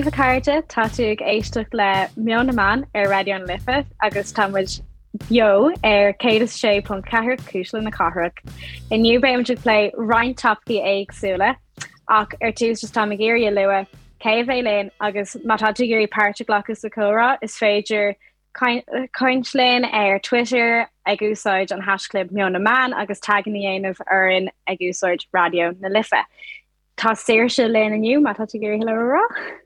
daoibh a chairde, tá tú ag éisteacht le Meon na Meán ar Raidió na Life agus tá muid beo ar 106.4 Cuisle na Cathrach. Inniu beimid ag plé roinnt topaicí éagsúla ach ar tús just táim ag iarraidh a lua cé a bheidh linn agus má tá tú ag iarraidh páirt a ghlacadh sa chomhrá is féidir caint linn ar Twitter ag úsáid an haischlib Meon na Meán agus taganna a dhéanamh orainn ag úsáid Raidió na Life. Tá Saoirse linn inniu, má tá tú ag iarraidh hello a rá.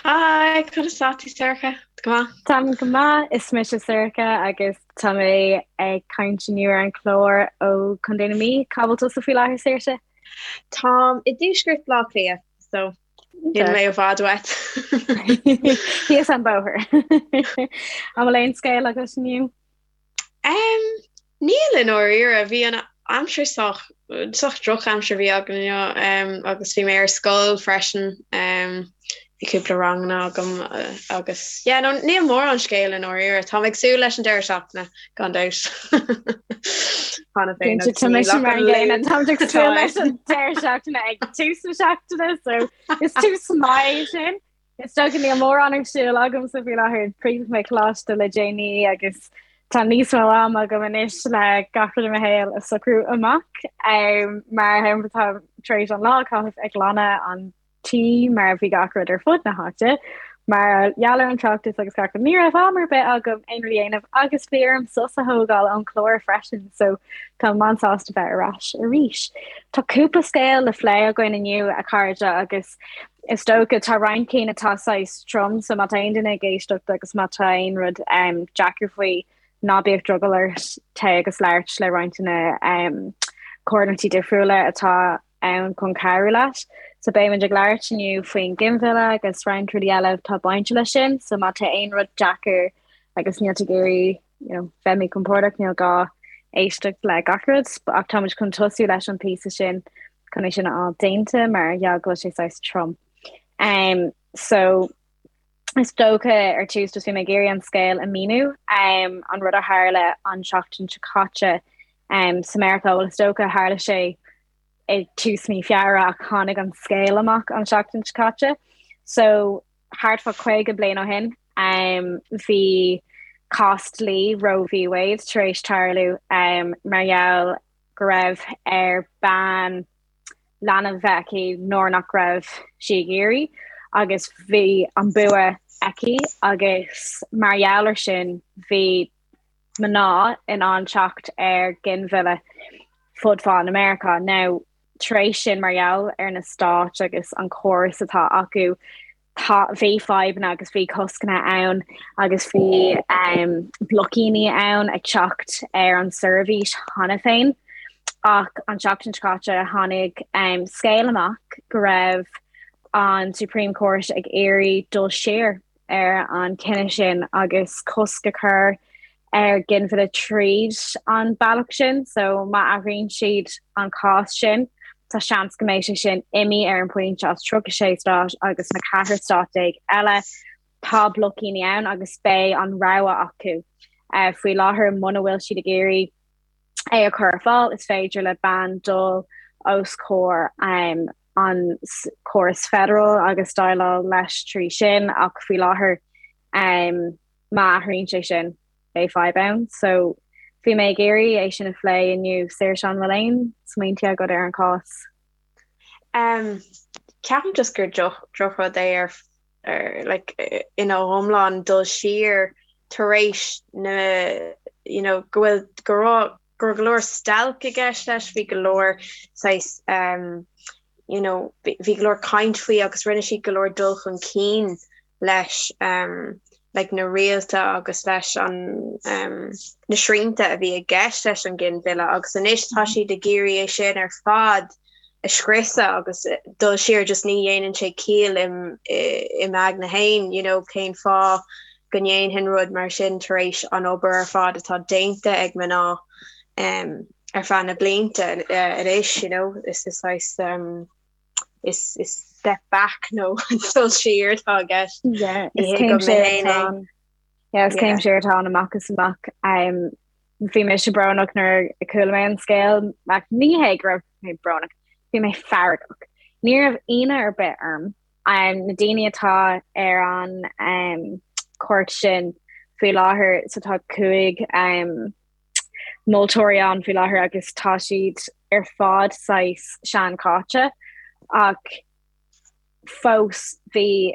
Hi, conas tá tú Sorcha? Go maith? Táim go maith, is mise Sorcha agus tá mé ag caint inniu ar an chlár ó Chontae na Mí. Cá bhfuil tusa faoi láthair Saoirse? Táim i dtuaisceart Bhaile Átha Cliath, so níl mé i bhfad uait. Thíos an bóthar. An bhfuil aon scéal agat inniu? Um, níl i ndáiríre, bhí an aimsir sách sách drochaimsir a bhí againn inniu um, agus bhí mé ar scoil freisin um, bhí cúpla ranganna agam uh, agus yeah, no, níl mórán scéal i ndáiríre, Táim ag súil leis an deireadh seachtaine gan dabht. Cheana féin agus Tá mise mar an gcéanna Táim ag súil leis an deireadh seachtaine ag tús na seachtaine so is tús maith sin. Is dócha níl mórán ar siúl agamsa faoi láthair chríochnaigh mé coláiste le déanaí agus tá níos mó ama agam anois le gach rud i mo shaol a socrú amach. Mar shampla tá tar éis an lá a chaitheamh ag glanadh an tí mar bhí gach rud ar fud na háite. Mar gheall ar an tráchtas agus gach rud ní raibh am ar bith agam aon rud a dhéanamh agus bhí orm sos a thógáil ón chlár freisin so táim an-sásta bheith ar ais arís. Tá cúpla scéal le plé againn inniu a chairde agus Is dócha, tá roinnt cinn atá saghas trom, so má tá aon duine ag éisteacht agus má tá aon rud deacair faoi, ná bíodh drogall ort téigh agus labhairt le roinnt de na comhlachtaí difriúla atá ann chun cabhrú leat. So beimid ag labhairt inniu faoin ginmhilleadh agus roinnt rudaí eile atá bainte leis sin, so má tá aon rud deacair agus níl tú ag iarraidh you know, bheith míchompordach, níl gá éisteacht le gach rud, ach táimid chun tosú leis an píosa sin chun é sin a fháil déanta mar gheall go bhfuil sé saghas trom. Um, so is dócha ar tús just bhí mé ag iarraidh an scéal a míniú um, an rud a tharla an seachtain seo caite um, sa Meiriceá, well is dócha tharla sé ag tús mí Feabhra ach tháinig an scéal amach an seachtain seo caite. So thart fá 50 bliain ó shin, bhí cás dlí Roe v Wade tar éis tarlú mar gheall go raibh ar bean leanbh bheith aici nuair nach raibh sí ag iarraidh agus bhí an bua aici agus mar gheall ar sin bhí mná in ann teacht ar ghinmhilleadh fud fad na Meiriceá. Now, tar éis sin, mar gheall ar na stáit agus an córas atá acu, tá, bhí fadhbanna agus bhí coscanna ann agus bhí um, bloicíní ann ag teacht ar an seirbhís cheana féin. Ach an tseachtain seo caite tháinig um, scéal amach go raibh an Supreme Court ag iarraidh dul siar ar an chinneadh sin agus cosc a chur ar ghinmhilleadh tríd an bealach sin, so má athraíonn siad an cás sin, tá seans go mbeidh sé sin imithe ar an bpointe as 36 stát agus na 14 stát eile. Tá bloicíní ann agus beidh an rogha acu. Faoi láthair, muna bhfuil siad ag iarraidh é a chur ar fáil, is féidir le bean dul os comhair an córas federal agus déileáil leis trí sin ach faoi láthair má athraíonn sé sin beidh fadhb ann. So bhí mé ag iarraidh é sin a phlé inniu. Saoirse, an bhfuil aon smaointe agat ar an chás? Um, ceapaim just gur drochrud é ar ar like ina iomlán dul siar tar éis na you know go bhfuil go raibh go raibh go leor stailc i gceist leis, bhí go leor saghas um, you know, bhí go leor caint faoi agus rinne siad go leor dul chun cinn leis um, like na rialta agus leis an um, na srianta a bhí i gceist leis an ginmhilleadh agus anois tá siad ag iarraidh é sin ar fad a scriosadh agus dul siar just ní dhéanann sé ciall im i m'aigne féin you know cén fáth go ndéanfainn rud mar sin tar éis an obair ar fad atá déanta ag mná um, ar feadh na blianta uh, anois you know is is saghas um, is is step back nó dul siar atá i gceist. Yeah, is céim siar atá ann. Yeah, is céim siar atá ann amach is amach. Um, bhí mise brónach nuair a chuala mé an scéal, ach ní hé go raibh mé brónach, bhí mé feargach. Ní raibh ionadh ar bith orm. Na daoine atá ar an chúirt sin faoi láthair, so tá 5 moltóirí ann faoi láthair agus tá siad ar fad saghas seanchaite ach fós bhí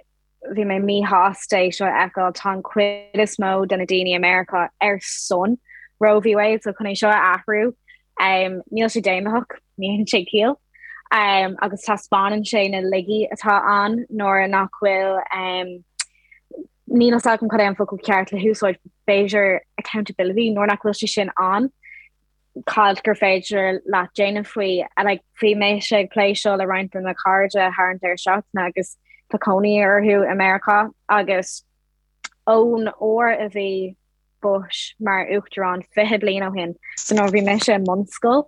bhí mé míshásta é seo a fheiceáil. Tá an chuid is mó de na daoine i Meiriceá ar son Roe v Wade so chun é seo a athrú níl sé daonlathach, ní haon sé ciall. Agus taispeánann sé na laigí atá ann nuair nach bhfuil níl a fhios agam cad é an focal ceart le húsáid, b'fhéidir accountability, nuair nach bhfuil sé sin ann, cad gur féidir leat déanamh faoi. Like, bhí mise ag plé seo le roinnt de mo chairde thar an deireadh seachtaine agus tá cónaí orthu i Meiriceá agus ón uair a bhí Bush mar uachtarán 20 bliain ó shin, so nuair a bhí mise i mbunscoil,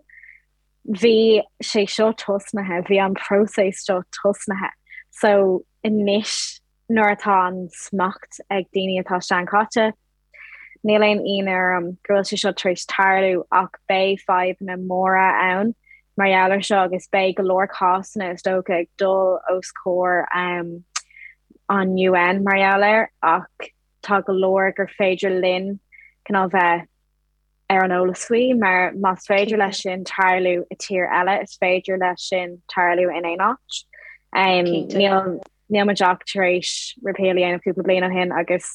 bhí sé seo tosnaithe, bhí an próiseas seo tosnaithe. So anois nuair atá an smacht ag daoine atá seanchaite, níl aon ionadh orm go bhfuil sé seo tar éis tarlú ach beidh fadhbanna móra ann mar gheall ar seo agus beidh go leor cásanna is dócha ag dul os comhair an UN mar gheall air ach tá go leor gur féidir linn cineál bheith ar an eolas faoi mar más féidir leis sin tarlú i tír eile is féidir leis sin tarlú in aon áit. Níl níl muid ach tar éis repeal a dhéanamh cúpla bliain ó shin agus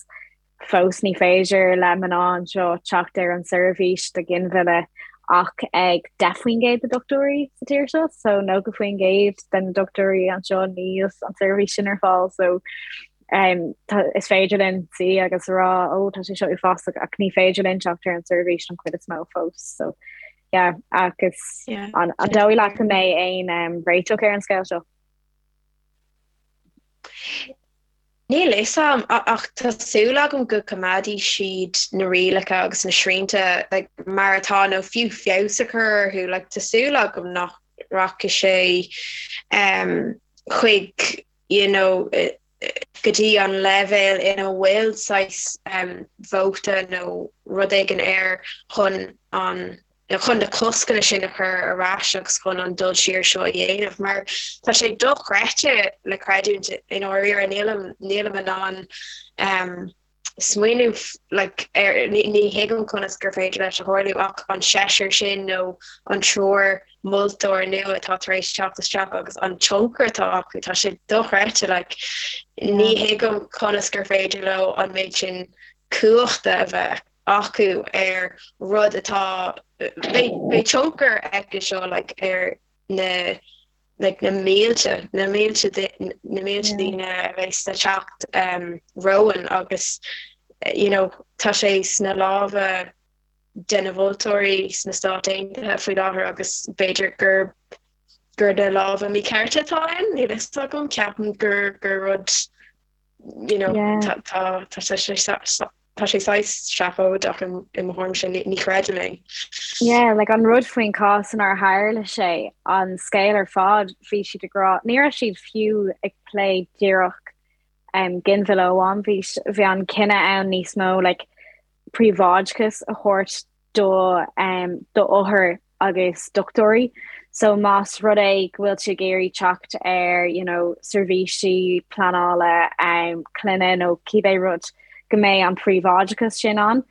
fós ní féidir le mná anseo teacht ar an seirbhís do ghinmhilleadh ach ag 10% de dochtúirí sa tír seo, so 90% de na dochtúirí anseo níl an seirbhís sin ar fáil so um, tá, is féidir linn suí agus rá ó tá sé seo uafásach ach ní féidir linn teacht ar an seirbhís an chuid is mó fós so yeah, agus yeah. an, an dóigh leat go mbeidh aon um, réiteach ar an scéal seo? Níl a fhios agam, ach tá súil agam go coimeádfaidh siad na rialacha agus na srianta like, mar atá nó fiú feabhas a chur orthu. Like, tá súil agam nach rachaidh sé um, chuig you know, go dtí an leibhéal ina bhfuil saghas um, vóta nó rud éigin air chun an chun na coscanna sin a chur ar ais agus chun an dul siar seo a dhéanamh mar tá sé dochreidte le creidiúint i ndáiríre nílim nílim in ann um, smaoineamh like, ar ní, ní thuigim conas gur féidir leis a tharlú ach an seisear sin nó an triúr moltóir nua atá tar éis teacht isteach agus an tionchar atá acu tá sé dochreidte like, ní thuigim conas gur féidir leo an méid sin cumhachta a bheith acu ar rud atá, beidh tionchar aige seo like ar na like na mílte, na mílte na mílte daoine a bheas le teacht um, romhainn agus you know, tá sé sna lámha de na vótóirí sna Stáit Aontaithe faoi láthair agus b'fhéidir gur gur na lámha míchearta atá ann, níl a fhios agam, ceapaim gur gur rud you know, tá tá tá sé tá sé saghas seafóideach i mo thuairimse, ní chreidim é. Yeah, like an rud faoin cás inar tharla sé, an scéal ar fad, bhí siad ag rá, ní raibh siad fiú ag plé díreach um, ginmhilleadh amháin, bhí, bhí an cinneadh ann níos mó like, príobháideachas a thabhairt do um, do othair agus dochtúirí. So más rud é go bhfuil tú ag iarraidh teacht ar you know, seirbhísí pleanála um, clainne nó cibé rud go mbeidh an príobháideachas sin ann.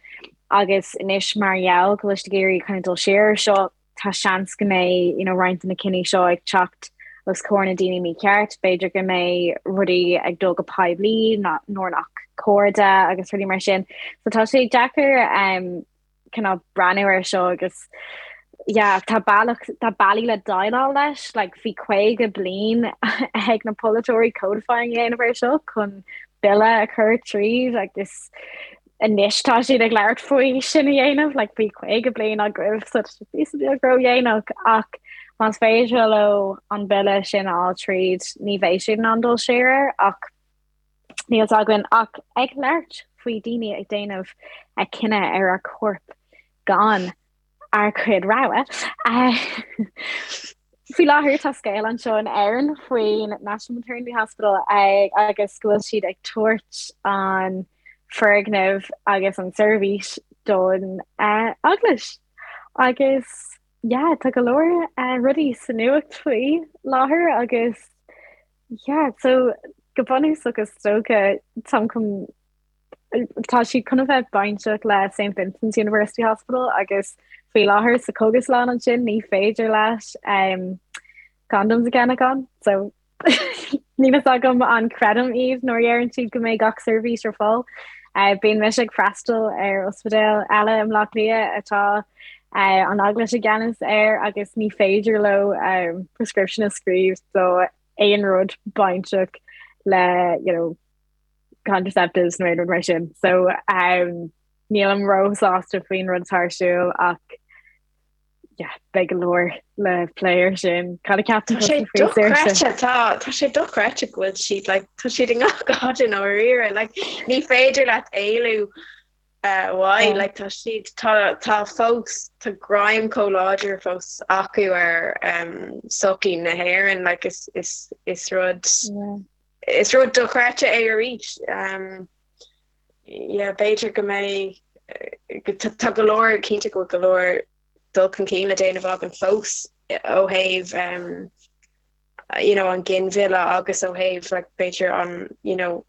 Agus anois mar gheall go bhfuil siad ag iarraidh kind of dul siar ar seo, tá seans go mbeidh you know, roinnt de na cinní seo ag teacht os comhair na daoine mícheart, b'fhéidir go mbeidh rudaí ag dul go poiblí nuair nach cóir de agus rudaí mar sin. So tá sé deacair um, cineál breathnú ar seo agus yeah, tá bealach tá bealaí le déileáil leis, like bhí 50 bliain ag na polaiteoirí codifying a dhéanamh ar seo chun bille a chur tríd agus anois tá siad ag labhairt faoi sin a dhéanamh, like bhí 50 bliain agaibh so tá sé píosa beag ródhéanach ach más féidir leo an bille sin a fháil tríd ní bheidh siad in ann dul siar air ach Níl fhios againn ach ag labhairt faoi daoine ag déanamh a cinneadh ar ár corp gan ár gcuid rogha. Faoi láthair tá scéal anseo in Éirinn faoin National Maternity Hospital agus go bhfuil siad ag tabhairt an foirgneamh agus an seirbhís don eaglais. Agus yeah, tá go leor rudaí sa nuacht faoi láthair agus yeah, so. go bunúsach is dócha táim chun tá siad chun a bheith bainteach le St Vincent's University Hospital agus faoi láthair sa chógaslann ansin ní féidir leat um, condoms a cheannach ann so níl fhios agam an creidim iad nuair a deireann siad go mbeidh gach seirbhís ar fáil. Uh, bíonn mise ag freastal ar ospidéal eile i mBleá Cliath atá uh, an Eaglais i gceannas air agus ní féidir leo um, prescription a scríobh do aon rud bainteach le you know, contraceptives nó aon rud mar sin. So um, nílim róshásta faoin rud atá ar siúl ach yeah, beidh go leor le plé ar sin. Cad a cheapann Tá sé dochreidte tá tá sé dochreidte go bhfuil siad like, tá siad i ngach áit i ndáiríre like, ní féidir leat éalú uh, uaidh like, tá siad tá tá fós tá greim chomh láidir fós acu ar um, sochaí na hÉireann like, is, is, is rud yeah. Is rud dochreidte é arís. Yeah, b'fhéidir go mbeidh, tá go leor, cinnte go bhfuil go leor dul chun cinn le déanamh againn fós ó thaobh you know, an ginmhilleadh agus ó thaobh like, b'fhéidir an, you know,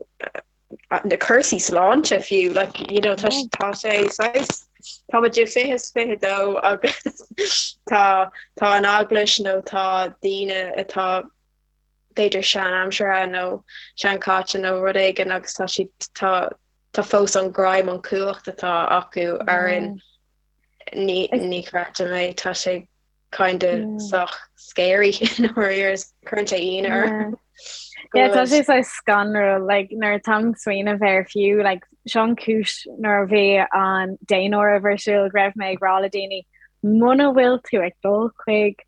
na cúrsaí sláinte fiú, like, you know, tá tá sé saghas tá muid i 2022 agus tá tá an eaglais nó tá daoine atá b'fhéidir sean-aimseartha nó seanchaite nó rud éigin agus tá siad tá tá fós an greim an cumhacht atá acu orainn ní ní chreidim é tá sé kind of sách scary nuair cuireann sé ionadh orm. Yeah, tá sé saghas scanrúil like, nuair atáim ag smaoineamh air fiú like, seo an cúis nuair a bhí an daonáireamh ar siúl go raibh mé ag rá le daoine muna bhfuil tú ag dul chuig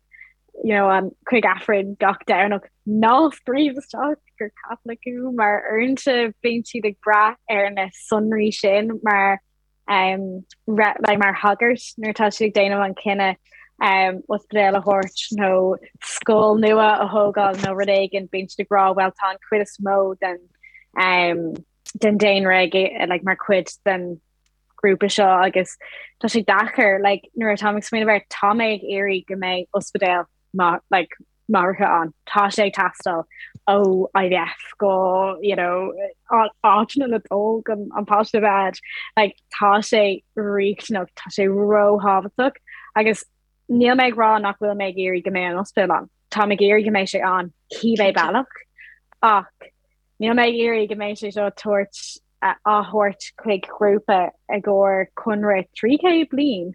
you know, an chuig Aifreann gach Domhnach ná scríobh isteach gur Catholic thú mar uaireanta bíonn siad ag brath ar na sonraí sin mar um, re, like, mar thagairt nuair atá siad ag déanamh an cinneadh um, ospidéal a thabhairt nó scoil nua a thógáil nó rud éigin bíonn siad ag rá well tá an chuid is mó den um, den daonra ag, like, mar chuid den grúpa seo agus tá sé deacair like, nuair atá ag smaoineamh air tá mé ag iarraidh go mbeidh ospidéal like, máithreacha ann tá sé ag teastáil ó IVF go you know, áiteanna le dul chun an páiste a bheith like, tá sé riachtanach tá sé róthábhachtach agus níl mé ag rá nach bhfuil mé ag iarraidh go mbeidh an ospidéal ann Tá mé ag iarraidh go mbeidh sé ann cibé bealach ach níl mé ag iarraidh go mbeidh sé seo tabhairt á thabhairt chuig grúpa i gcomhair conradh 300 bliain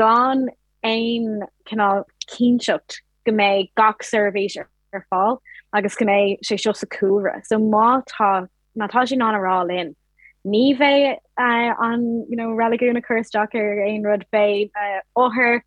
gan aon cineál cinnteacht go mbeidh gach seirbhís ar fáil agus go mbeidh sé seo sa chúlra. So má tá má tá siad in ann a rá linn ní bheidh an you know, reiligiún ag cur isteach ar aon rud beidh othair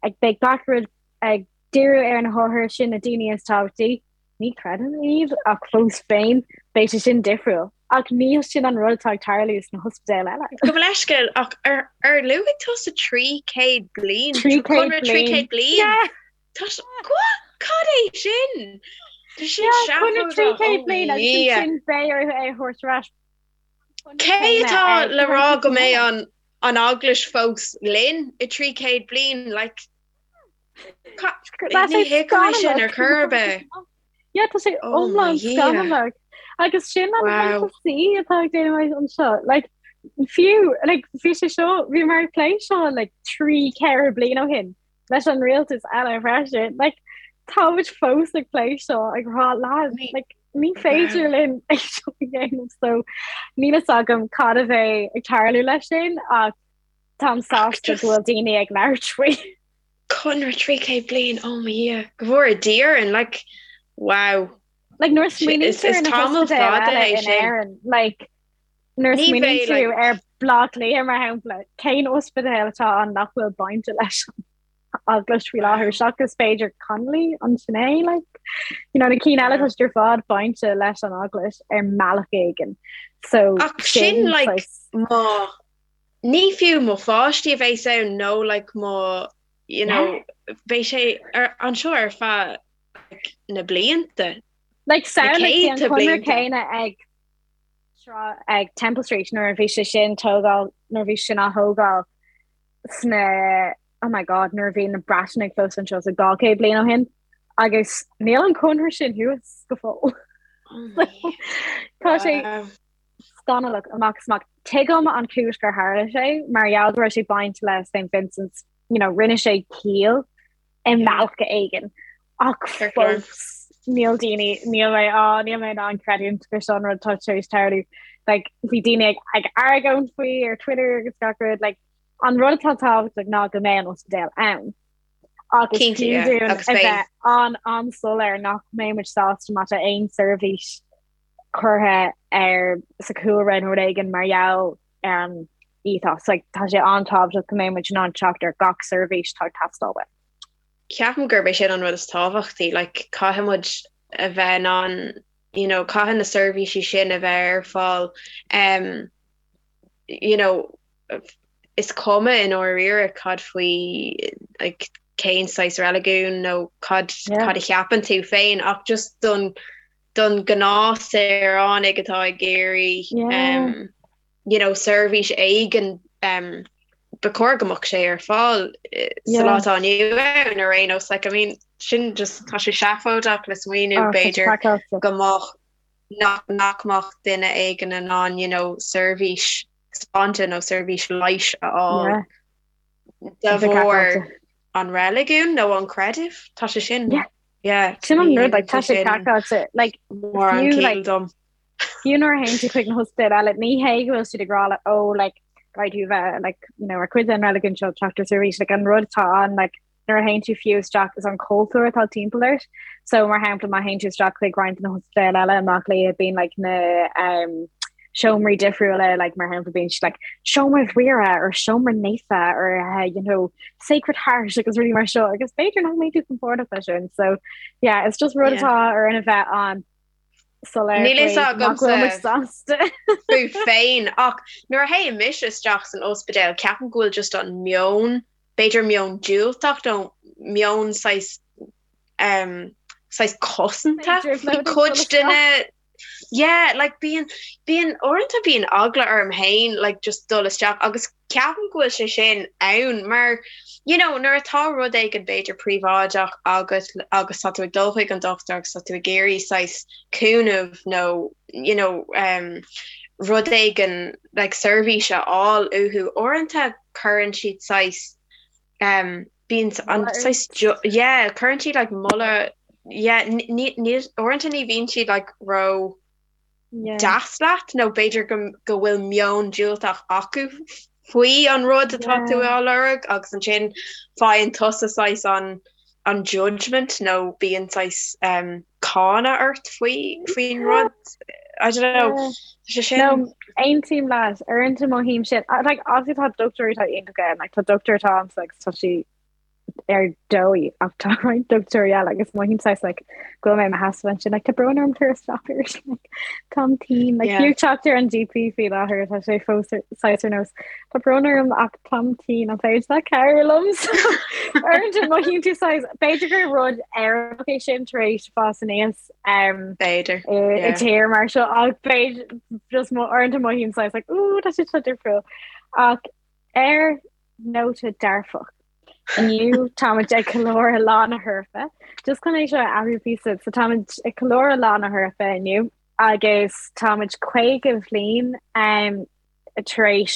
ag beidh gach rud ag díriú ar na hothair sin na daoine is tábhachtaí. Ní chreidim iad ach fós féin beidh sé sin difriúil. Ach níl sin an rud atá ag tarlú sna hospidéil eile. Gabh mo leithscéal ach ar ar luaigh tusa 300 bliain? 300 bliain. bliain? Tá cad é sin? Tá sin seafóideach. 300 bliain agus sin beidh orthu é a thabhairt ar ais. Cé atá le rá go mbeidh an an eaglais fós linn i 300 bliain like Ní thuigim sin ar chor ar bith. Yeah, tá sé oh iomlán scannalach. Agus sin an HSE atá ag déanamh anseo. Like, fiú, like, bhí sé seo, bhí mar plé seo like, 3 4 bliain ó shin leis an rialtas eile freisin. Like, tá muid fós ag plé seo ag rá lads, like, ní féidir linn é seo a dhéanamh so níl fhios agam cad a bheidh ag tarlú leis sin ach Táim sásta go bhfuil daoine ag labhairt faoi. Conradh 300 bliain, oh mo Dhia, go bhfóire Dia orainn, like, wow. Like, nuair a smaoiníonn tú ar na hospidéil eile in Éirinn, like, nuair a smaoiníonn tú ar Bhleá Cliath, mar shampla, cén ospidéal atá ann nach bhfuil bainte leis an eaglais faoi láthair, seachas b'fhéidir Connolly, an sin é, like, you know, na cinn eile tá siad ar fad bainte leis an eaglais ar mbealach éigin. So, Ach sin, like, má Ní fiú mo pháistí a bheas ann nó like mo you know beidh sé ar anseo ar feadh like na blianta. Like samhlaigh an conradh céanna ag ag Temple Street nuair a bhí sé sin tógáil nuair a bhí sin á thógáil sna oh my god nuair a bhí na Breatanaigh fós anseo so 200 bliain ó shin agus níl an conradh sin thuas go fóill. Tá sé scannalach amach is amach. Tuigim an chúis gur tharla sé mar gheall go raibh sé bainte le St Vincent's, you know, rinne sé ciall i mbealach éigin ach fós níl daoine níl mé á níl mé in ann creidiúint gur seo an rud atá tar éis tarlú. Like, bhí daoine ag, ag argóint faoi ar Twitter agus gach rud, like, an rud atá tábhachtach ná go mbeidh an ospidéal ann. Agus Cinnte, yeah, fiú dúinn agus a beidh. bheith an an-soiléir nach mbeidh muid sásta má tá aon seirbhís curtha ar sa chúlra nó rud éigin mar gheall ar an ethos. Like, tá sé an-tábhachtach go mbeidh muid in ann teacht ar gach seirbhís atá ag teastáil uainn. Ceapaim gurb é sin an rud is tábhachtaí, like, caithfidh muid a bheith in ann, you know, caithfidh na seirbhísí sin a bheith ar fáil, um, you know, is cuma i ndáiríre cad faoi, like, cén saghas reiligiún nó cad, Yeah. cad a cheapann tú féin ach just don, don ghnáthshaoránaigh atá ag iarraidh Yeah. um, you know, seirbhís éigin um, ba chóir go mbeadh sé ar fáil eh, sa Yeah. lá atá inniu ann ar aon nós. Like, I mean, sin just tá sé seafóideach le smaoineamh Oh, tá sé b'fhéidir craiceáilte. go mbeadh nach nach mbeadh duine éigin in ann you know, seirbhís sláinte nó seirbhís leighis a fháil Yeah. de Tá sé bharr craiceáilte. an reiligiún nó an creideamh. Tá sé sin Yeah. yeah, Sin an ní rud, like, tá tá sé sin craiceáilte, like, mórán fiú, ciall like, dom. fiú nuair a théann tú chuig na hospidéil eile, ní hé go bhfuil siad ag rá like, oh, like, caithfidh tú bheith, like, you know, ar cuid den reiligiún seo teacht ar seirbhís, like, an rud atá ann, like, nuair a théann tú fiú isteach is an cultúr atá timpeall ort. So, mar shampla, má théann tú isteach chuig roinnt de na hospidéil eile i mBaile Átha Cliath, bíonn, like, na, um, seomraí difriúla, like, mar shampla, bíonn siad, like, seomra Mhuire or seomra naofa or, uh, you know, Sacred Heart agus rudaí mar seo, agus b'fhéidir nach mbeidh tú compordach leis sin. So, yeah, it's just rud Yeah. atá orainn a bheith an-soiléir Níl fhios faoi nach agamsa bhfuil muid sásta. fút féin ach nuair a théann mise isteach san ospidéal ceapaim go bhfuil just an meon, b'fhéidir meon diúltach nó meon saghas um, saghas cosanta B'fhéidir faoi ag dul cuid isteach. de na Yeah, like bíonn, bíonn, uaireanta bíonn eagla orm féin like just dul isteach agus ceapaim go bhfuil sé sin ann mar you know nuair atá rud éigin b'fhéidir príobháideach agat agus tá tú ag dul chuig an dochtúir agus tá tú ag iarraidh saghas cúnamh nó you know um, rud éigin like seirbhís a fháil uathu, uaireanta cuireann siad saghas um, bíonn an Moladh saghas ort. yeah, cuireann siad like moladh yeah, ní ní uaireanta ní bhíonn siad like ró Yeah. deas leat nó b'fhéidir go go bhfuil meon diúltach acu faoi an rud atá tú Yeah. á lorg agus ansin faigheann tusa saghas an an judgment nó bíonn saghas um, cáineadh ort faoi faoin rud. I don't know. Yeah. Tá sé sin No, aontaím leat, uaireanta mothaím sin. Like, obviously tá dochtúirí atá iontach ann, like, tá dochtúir atá ann agus tá sí ar dóigh ach tá roinnt dochtúirí eile agus mothaím saghas like, go bhfuil mé i mo sheasamh ansin, like, tá brón orm tar isteach arís, like, táim tinn, like, yeah. fiú teacht ar an GP faoi láthair tá sé fós saghas ar nós, tá brón orm ach táim tinn an féidir leat cabhrú liom so uaireanta mothaíonn tú saghas, b'fhéidir gur rud Éireannach é sin tar éis fás aníos um, B'fhéidir, i i yeah. tír mar seo ach b'fhéidir just mo uaireanta mothaím saghas like, ooh, tá sé seo difriúil ach ar nóta dearfach. Inniu táimid ag ceiliúradh Lá na hEorpa. Just chun é seo a athrú píosa, so táimid ag ceiliúradh Lá na hEorpa inniu agus táimid 50 bhliain um, tar éis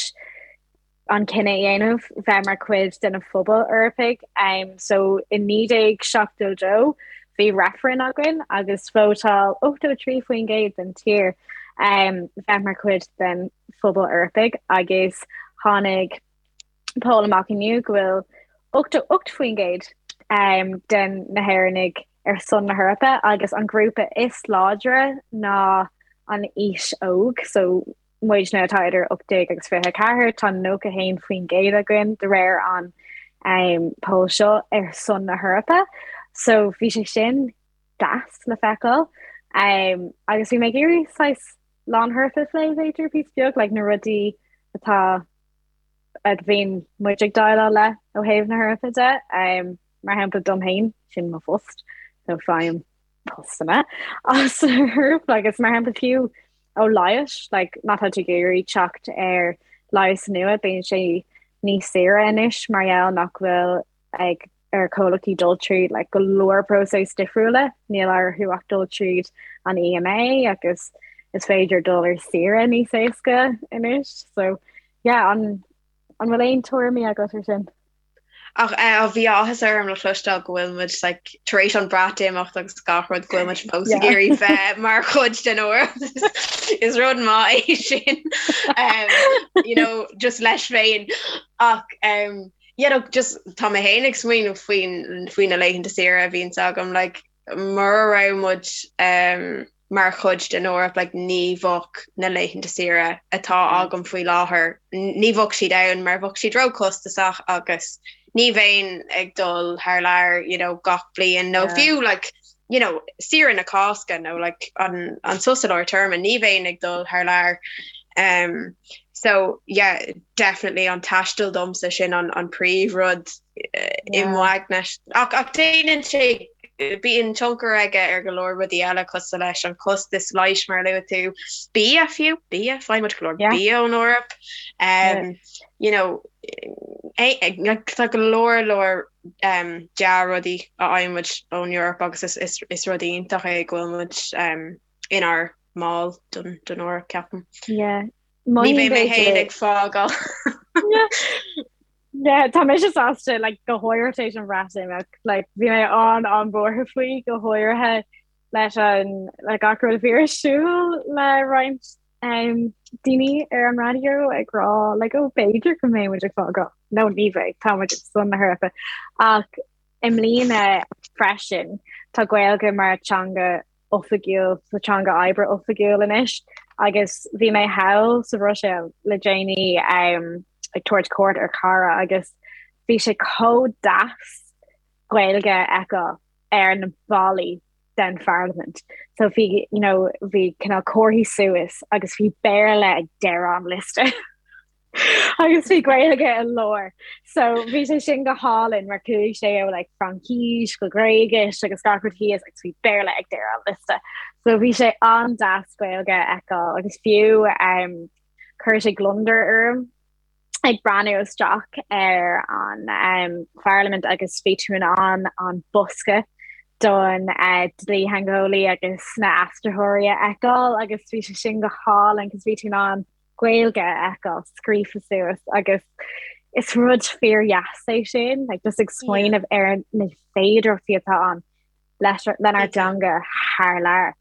an cinneadh a dhéanamh bheith mar chuid den phobal Eorpaigh. Um, so i 1972 bhí reifreann againn agus vótáil 83% den tír um, bheith mar chuid den phobal Eorpaigh agus tháinig poll amach inniu go bhfuil 88% um, den na hÉireannaigh ar son na hEorpa agus an grúpa is láidre ná an aois óg, so muidne atá idir 18 agus 24, tá 91% againn de réir an um, poll seo ar son na hEorpa. So bhí sé sin deas le feiceáil. Um, agus bhí mé ag iarraidh saghas Lá na hEorpa a phlé b'fhéidir píosa beag, like na rudaí atá a bhíonn muid ag déileáil le ó thaobh na hEorpa de. Um, mar shampla dom féin, sin mo phost, so faighim postanna as an Eoraip agus mar shampla fiú ó leigheas, like má tá tú ag iarraidh teacht ar leigheas nua, bíonn sé níos saoire anois mar gheall nach bhfuil ag ar chomhlachtaí dul tríd like, go leor próiseas difriúla, níl orthu ach dul tríd an EMA agus is féidir dul ar saoire níos éasca anois. So yeah, an an bhfuil aon tuairimí agat ar sin? Ach eh, bhí áthas orm le cloisteáil go bhfuil muid like, tar éis an Breatimeacht agus gach rud go bhfuil muid fós ag iarraidh bheith mar chuid den Eoraip. Is rud maith é sin. Um, you know, just leis féin. Ach um, yeah, no, just tá mé féin ag smaoineamh faoin faoi na laethanta saoire a bhíonns agam like, mura raibh muid um, mar chuid den Eoraip like ní bheadh na laethanta saoire atá agam faoi láthair, ní bheadh siad ann mar bheadh siad róchostasach agus ní bheinn ag dul thar lear you know gach bliain nó fiú like you know saoire na Cásca nó like an an sos i lár téarma ní bheinn ag dul thar lear. Um, so yeah, definitely an taisteal domsa sin an an príomhrud i m'aigne. Ach ach déanann sé bíonn tionchar aige ar go leor rudaí eile cosúil leis an costas leighis mar a luaigh tú, bia fiú, bia, faigheann muid go leor bia ón Eoraip. Um, you know, tá go leor leor um, dea-rudaí a fhaigheann muid ón Eoraip agus is, is, is rud iontach é go bhfuil muid um, inár mball den, den Eoraip, ceapaim. Yeah. Ní bheidh mé féin ag fágáil. Yeah, tá mise sásta like, go háirithe tar éis an Bhreatimeacht like, bhí mé an an-bhuartha faoi go háirithe leis an le gach rud a bhí ar siúl le roinnt um, daoine ar an raidió ag rá like, oh, b'fhéidir go mbeidh muid ag fágáil. No ní bheidh tá muid san na hEorpa. Ach i mbliana freisin tá Gaeilge mar teanga oifigiúil sa teanga oibre oifigiúil anois agus bhí mé thall sa Bhruiséil le déanaí um, ag tabhairt cuairt ar chara agus bhí sé chomh deas Gaeilge a fheiceáil ar na ballaí den Pharlaimint. So bhí you know, bhí cineál comharthaí suas agus bhí Béarla ag deireadh an liosta. agus bhí Gaeilge i lár. So bhí sé sin go hálainn mar chuaigh sé ó like, Fraincis go Gréigis agus gach rud thíos agus bhí Béarla ag deireadh an liosta. So bhí sé an-deas Gaeilge a fheiceáil agus fiú um, chuir sé gliondar orm ag breathnú isteach ar an um, Pharlaimint agus bhí tú in ann an bosca don uh, dlítheangeolaí agus na aistritheoirí a fheiceáil agus bhí sé sin go hálainn cos bhí tú in ann Gaeilge a fheiceáil scríofa suas agus is rud fíordheas é sin, like just ag smaoineamh ar na féidearthachtaí atá ann leis lenár dteanga thar lear.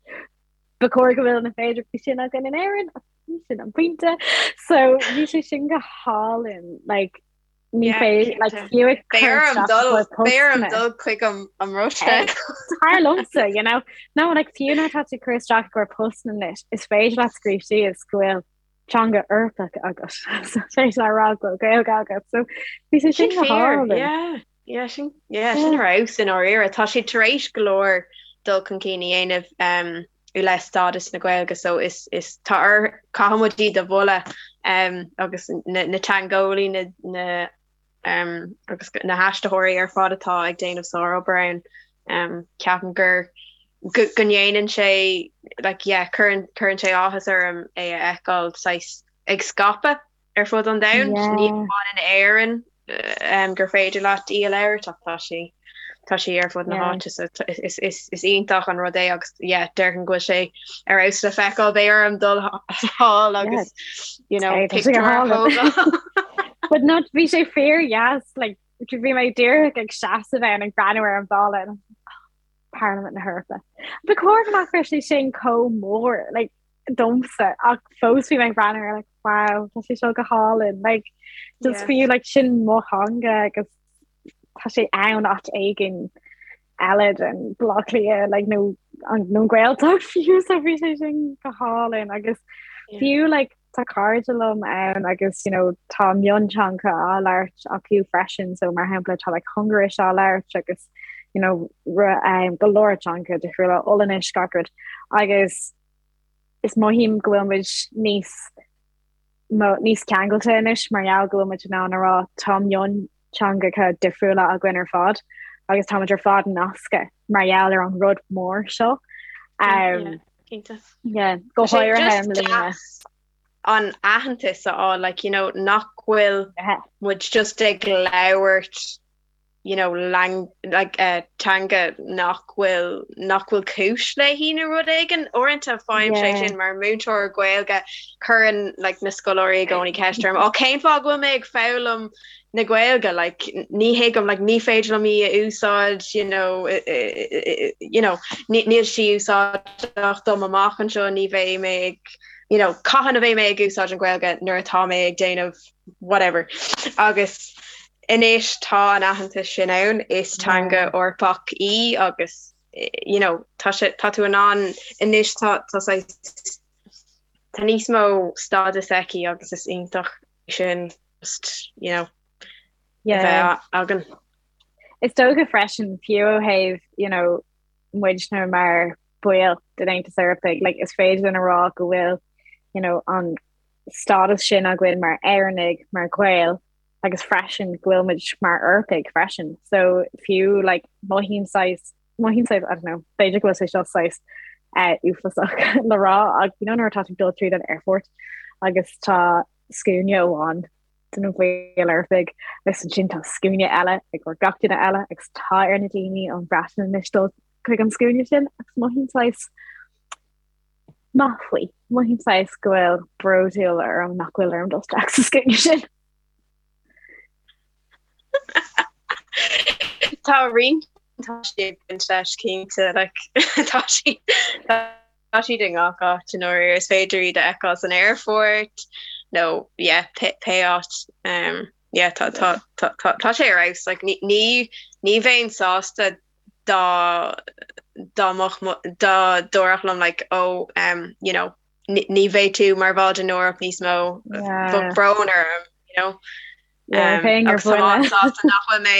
Ba chóir go bhfuil na féidearthachtaí sin againn in Éirinn, ach sin an pointe. So bhí sé sin go hálainn, like Ní féidir like fiú ag cur isteach i gcomhair Beidh orm dul chuig an an mBruiséil. Tar liomsa, you know. No, like fiú nuair atá tú ag cur isteach i gcomhair postanna anois, is féidir leat scríobh síos go bhfuil teanga Eorpach agat. So is féidir leat rá go bhfuil Gaeilge agat. So bhí sé sin go hálainn. Yeah, yeah, sin yeah, sin ar fheabhas i ndáiríre. Tá siad tar éis go leor dul chun cinn a dhéanamh um, i leith stádas na Gaeilge so is is tá ar caithfidh muid iad a mholadh um, agus na, na teangeolaí na, na um, agus na haistritheoirí ar fad atá ag déanamh sárobair ann um, ceapaim gur go, go ndéanann sé like, yeah, cuireann, cuireann sé áthas orm é a fheiceáil saghas ag scaipeadh ar fud an domhain, ní hamháin in Éirinn gur féidir leat í a labhairt ach tá sí tá sí ar fud na háite so is is is iontach an rud é agus yeah déarfainn go bhfuil sé ar fheabhas le feiceáil beidh orm dul thall agus you know pictiúr a thógáil. But no bhí sé fíordheas like bhí mé díreach ag seasamh ann ag breathnú ar an bhalla Parlaimint na hEorpa. Ba chóir go nach raibh sé sin chomh mór like domsa ach fós bhí mé ag breathnú air like wow tá sé seo go hálainn like just yeah. fiú like sin mo theanga agus tá sé ann áit éigin eile den Baile Átha Cliath like nó an nó Gaeltacht fiú so bhí sé sin go hálainn agus yeah. fiú like tá cairde liom ann agus you know tá mionteanga á labhairt acu freisin so mar shampla tá like Hungáiris á labhairt agus you know um, go leor teanga difriúla Ollainnis gach rud agus is mothaím go bhfuil muid níos níos ceangailte anois mar gheall go bhfuil muid in ann a rá tá mionteangacha difriúla againn ar fad agus tá muid ar fad nasctha mar gheall ar an rud mór seo. Um, yeah, yeah, go háirithe i mbliana. an aitheantas a fháil like you know nach bhfuil muid just ag labhairt. you know, lang, like, uh, teanga nach bhfuil nach bhfuil cúis léi nó rud éigin. Uaireanta faighim sé sin mar múinteoir Gaeilge cuireann like, na scoláirí i gcónaí ceist orm, ó cén fáth go bhfuil mé ag foghlaim na Gaeilge, like, ní thuigim, like, ní féidir liom í a úsáid, you know, you know, níl sí úsáideach dom amach anseo, ní bheidh mé ag, you know, cathain a bheidh mé ag úsáid an Ghaeilge nuair atá mé ag déanamh whatever. Agus anois tá an aitheantas sin ann, is teanga Eorpach í agus you know, tá sé, tá tú in ann anois tá, tá saghas, tá níos mó stádas aici agus is iontach sin just, you know, a bheith againn. Is dócha freisin fiú ó thaobh, you know, muidne mar baill den Aontas Eorpaigh, like, is féidir linn a rá go bhfuil, you know, an stádas sin againn mar Éireannaigh, mar Ghaeil, agus freisin go bhfuil muid mar Eorpaigh freisin. So fiú like, mothaím saghas, mothaím saghas, I don't know, b'fhéidir go bhfuil sé seo saghas uh, uafásach le rá ach you know nuair atá tú ag dul tríd an airport agus tá scuaine amháin de na baill Eorpaigh agus ansin tá scuaine eile ag gach duine eile agus tá ar na daoine ón Bhreatain anois dul chuig an scuaine sin agus mothaím saghas maith faoi. Mothaím saghas go bhfuil bródúil orm nach bhfuil orm dul isteach sa scuaine sin. Tá roinnt tá sé ag baint leis cinnte like tá sí tá siad i ngach áit i ndáiríre is féidir iad a fheiceáil san aerfort nó yeah pé pé áit um yeah tá tá tá tá tá sé ar fheabhas like ní ní ní bheinn sásta dá dá mbeadh dá ndéarfadh liom like oh um you know ní bheidh tú mar bhall den Eoraip níos mó bheadh brón orm you know um, agus tá mé an-sásta nach bhfuil mé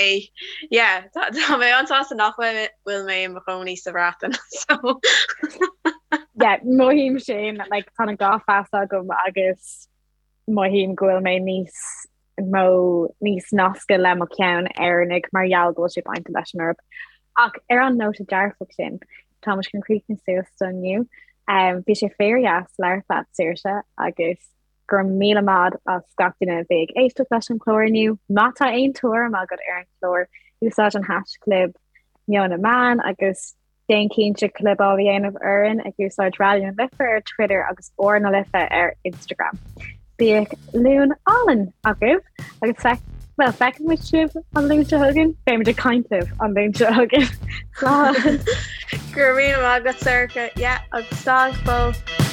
yeah tá mé an-sásta nach bhfuil mé i mo chónaí sa Bhreatain so yeah mothaím sin like tá an dhá phas agam agus mothaím go bhfuil mé níos mó níos nasctha le mo cheann Éireannaigh mar gheall go bhfuil sé bainte leis an Eoraip. Ach ar an nóta dearfach sin, tá muid chun críochnú suas do inniu. Um, bhí sé fíordheas labhairt leat Saoirse agus go raibh míle maith as gach duine a bhí ag éisteacht leis an chlár inniu. Má tá aon tuairim agat ar an chlár, úsáid an haischlib Meon na Meán agus Déan cinnte clibeáil a dhéanamh orainn ag úsáid Raidió na Life ar Twitter agus R na Life ar Instagram. Bíodh Luan álainn agaibh agus feic, bhuel, feicfidh muid sibh an Luan seo chugainn, beidh muid ag caint libh an Luan seo chugainn. Slán! Go raibh míle maith agat, Sorcha. Yeah, agus slán go fóill.